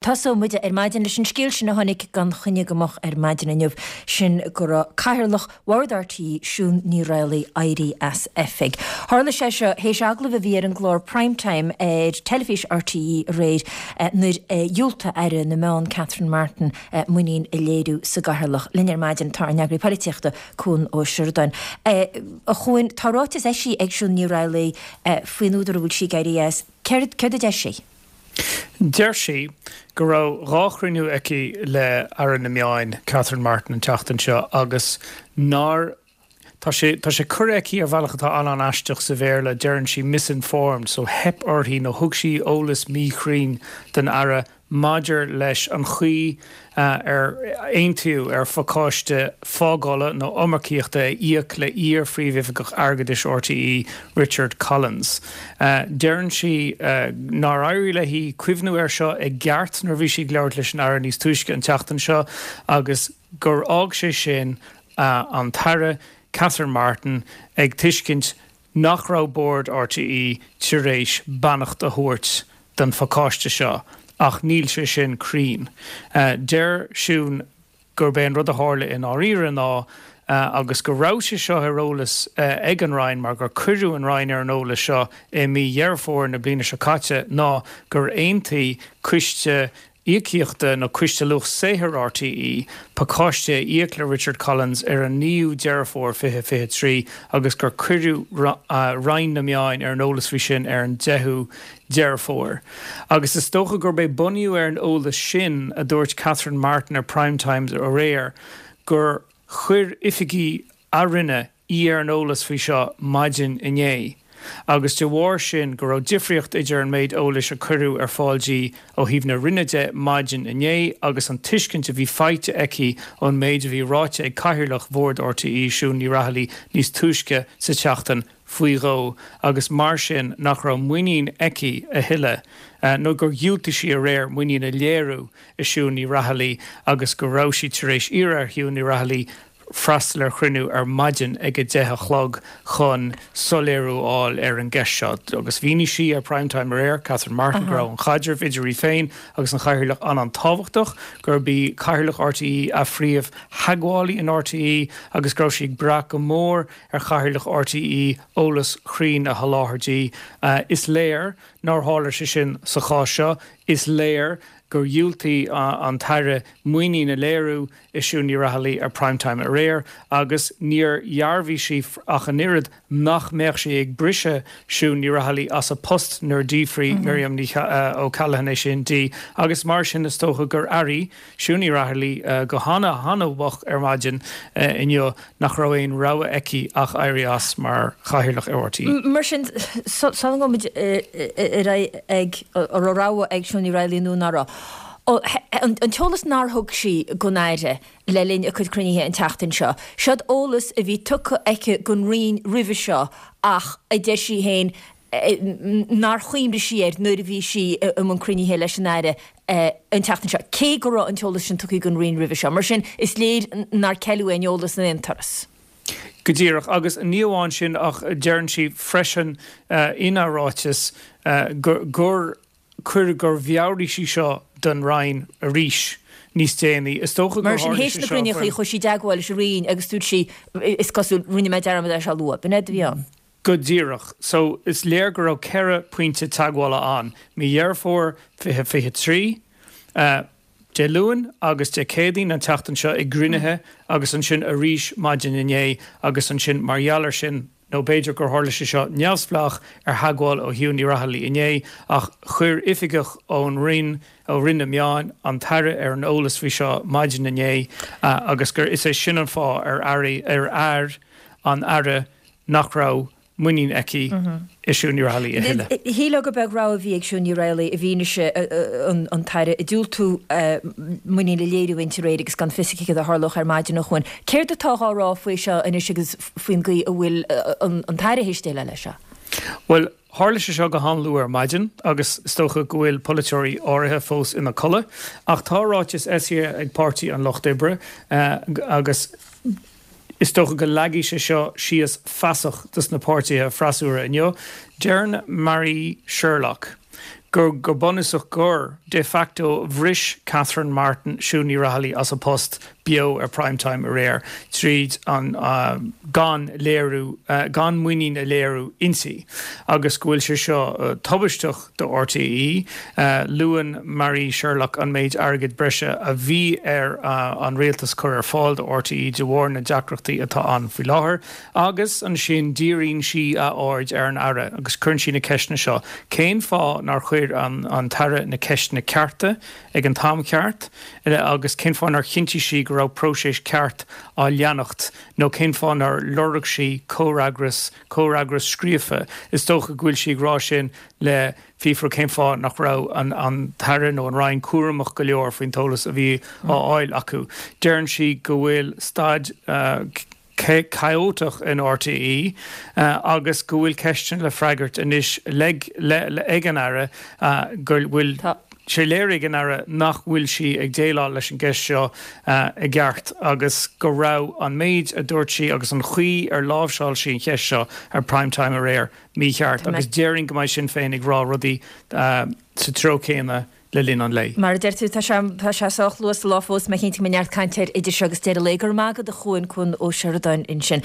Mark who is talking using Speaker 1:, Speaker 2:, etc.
Speaker 1: Tosóidh muid ar maidin leis an scéal sin a tháinig gan choinne go moch ar maidin inniu, sin go raibh Cathaoirleach Bhord RTÉ, Siún Ní Raghallaigh, éirithe as oifig. Tharla sé seo théis agallamh a bhí ar an gclár Prime Time ar teilifís RTÉ aréir nuair a dhiúltaigh Aire na Meán Catherine Martin muinín a léiriú sa gCathaoirleach. Linn ar maidin tá ár n-eagraí polaitíochta, Cuan Ó Seireadáin. A Chuain, tá ráiteas eisithe ag Siún Ní Raghallaigh faoin údar a bhfuil sí ag éirí as. Céard a deir sí?
Speaker 2: Deir sí go raibh 2 chruinniú aici le Aire na Meáin, Catherine Martin an tseachtain seo agus nár Tá sé tá sé curtha aici ar bhealach atá an-an-aisteach sa Bhéarla, deireann sí misinformed, so theip uirthi nó thug sí eolas míchruinn don Aire maidir leis an chaoi ar aontaíodh ar phacáiste fágála nó iomarcaíochta a íoc le iar-Phríomhoifigeach Airgeadais RTÉ, Richard Collins. Deireann sí nár éirigh léi cuimhniú air seo i gceart nuair a bhí sí ag labhairt leis an Aire níos túisce an tseachtain seo agus gur fhág sé sin an tAire Catherine Martin ag tuiscint nach raibh Bord RTÉ tar éis beannacht a thabhairt don phacáiste seo ach níl sé sin cruinn. Deir Siún gurb é an rud a tharla i ndáiríre ná, agus go raibh sé seo ar eolas ag an Roinn mar gur cuireadh an Roinn ar an eolas seo i mí Dheireadh Fómhair na bliana seo caite, ná gur aontaigh Coiste Íocaíochta nó Coiste Luach Saothair RTÉ pacáiste a íoc le Richard Collins ar an 9ú Deireadh Fómhair 2023 agus gur cuireadh Roinn na Meáin ar an eolas faoi sin ar an 10ú Deireadh Fómhair. Agus is dócha gurb é bunaithe ar an eolas sin a dúirt Catherine Martin ar Prime Time aréir gur chuir oifigigh a Roinne í ar an eolas faoi seo maidin inné agus de bharr sin go raibh difríocht idir an méid eolais a cuireadh ar fáil di ó thaobh na Roinne de maidin inné agus an tuiscint a bhí faighte aici ón méid a bhí ráite ag Cathaoirleach Bhord RTÉ, Siún Ní Raghallaigh níos túisce sa tseachtain faoi dhó agus mar sin nach raibh muinín aici a thuilleadh nó gur dhiúltaigh sí aréir muinín a léiriú i Siún Ní Raghallaigh agus go raibh sí tar éis iarraidh ar Shiún Ní Raghallaigh freastal ar chruinniú ar maidin ag 10 a chlog chun soiléiriú a fháil ar an gceist seo. Agus mhínigh sí ar Prime Time aréir, Catherine Martin, go raibh an chaidreamh idir í féin agus an Chathaoirleach an-an-tábhachtach, gurb í Cathaoirleach RTÉ a phríomh-theagmhálaí in RTÉ agus go raibh sí ag brath go mór ar Chathaoirleach RTÉ eolas cruinn a sholáthar di. Is léir nár tharla sé sin sa chás seo. Is léir gur dhiúltaigh an tAire muinín a léiriú i Siún Ní Raghallaigh ar Prime Time aréir agus níor dhearbhaigh sí ach an oiread nach mbeadh sí ag briseadh Siún Ní Raghallaigh as a post nuair a d'fhiafraigh Miriam Ní O'Callaghan é sin di agus mar sin is dócha gur airigh Siún Ní Raghallaigh go hana hana-mhoch ar maidin inniu nach raibh aon rogha aici ach éirí as mar Chathaoirleach ar RTÉ.
Speaker 1: Mar sin, sula ngabhaimid muid ar aghaidh ag an raibh rogha ag Siún Ní Raghallaigh nó ná raibh, an t-eolas nár thug sí don Aire le linn a cuid cruinnithe an tseachtain seo, seod eolas a bhí tugtha aici don Roinn roimhe seo ach a deir sí féin nár chuimhnigh sí air nuair a bhí sí i mbun cruinnithe leis an Aire an tseachtain seo, cé go raibh an t-eolas sin tugtha don Roinn roimhe seo. Mar sin, is léir nár ceileadh aon eolas in aon turas.
Speaker 2: Go díreach. Agus ní amháin sin ach deireann sí freisin ina ráiteas gur cuireadh, gur mheabhraigh sí seo don Roinn arís níos déanaí. Is dócha gur
Speaker 1: Mar sin, théis na gcruinnithe, chuaigh sí i dteagmháil leis an Roinn agus dúirt sí, is cosúil, rinne mé dearmad é seo a lua. B'in é a bhí ann.
Speaker 2: Go díreach. So, is léir go raibh 4 pointe teagmhála ann, mí Dheireadh Fómhair 2023, Dé Luain agus Dé Céadaoin an tseachtain seo i gcruinnithe agus ansin arís maidin inné agus ansin mar gheall air sin, nó b'fhéidir gur tharla sé seo neamhspleách ar theagmháil ó Shiún Ní Raghallaigh inné, ach chuir oifigeach ón Roinn, ó Roinn na Meán, an tAire ar an eolas faoi seo maidin inné agus gur is é sin an fáth ar airigh, ar air an Aire nach raibh muinín aici i Siún Ní Raghallaigh a thuilleadh.
Speaker 1: Shílfeá gur beag rogha a bhí ag Siún Ní Raghallaigh i bhfianaise an tAire ag diúltú muinín a léiriú inti aréir agus gan fios aici céard a tharlódh ar maidin a Chuain. Céard atá á rá faoi seo anois agus faoin gcaoi a bhfuil an tAire théis déileáil leis seo?
Speaker 2: Bhuel, tharla sé seo go han-luath ar maidin agus is dócha go bhfuil polaiteoirí áirithe fós ina codladh. Ach tá ráiteas eisithe ag Páirtí an Lucht Oibre agus, Is dócha go leagfaidh sé seo síos feasacht dos na páirtithe freasúra inniu. Deireann Mary Sherlock. Gur go bunúsach gur, de facto, bhris Catherine Martin Siún Ní Raghallaigh as a post beo ar Prime Time aréir tríd an gan léiriú, gan muinín a léiriú inti agus go bhfuil sé seo tubaisteach do RTÉ. Luann Marie Sherlock an méid airgid breise a bhí ar an rialtas cur ar fáil do RTÉ de bharr na deacrachtaí atá ann faoi láthair. Agus ansin díríonn sí a aird ar an Aire agus cuireann sí na ceisteanna seo, cén fáth nár chuir an tAire na ceisteanna cearta ag an t-am ceart agus cén fáth nár chinntigh sí go raibh próiseas ceart á leanacht nó cén fáth nár lorg sí comhfhreagras, comhfhreagras scríofa? Is dócha go bhfuil sí ag rá sin le fiafraí cén fáth nach raibh an tAire nó an Roinn cúramach go leor faoin t-eolas a bhí á fháil acu. Deireann sí go bhfuil staid. chaótach in RTÉ agus go bhfuil ceisteanna le freagairt anois ag an Aire go bhfuil sé léirithe ag an Aire nach bhfuil sí ag déileáil leis an gceist seo i gceart agus go raibh an méid a dúirt sí agus an chaoi ar láimhseáil sí an cheist seo ar Prime Time aréir mícheart agus déarfainn go mbeidh Sinn Féin ag rá rudaí sa treo céanna le linn an lae.
Speaker 1: Mar a deir tú, tá sé, tá sé sách luath sa lá fós, mé cinnte go mbeidh neart cainte air idir seo agus deireadh an lae. Go raibh maith agat a Chuain, Cuan Ó Seireadáin ansin.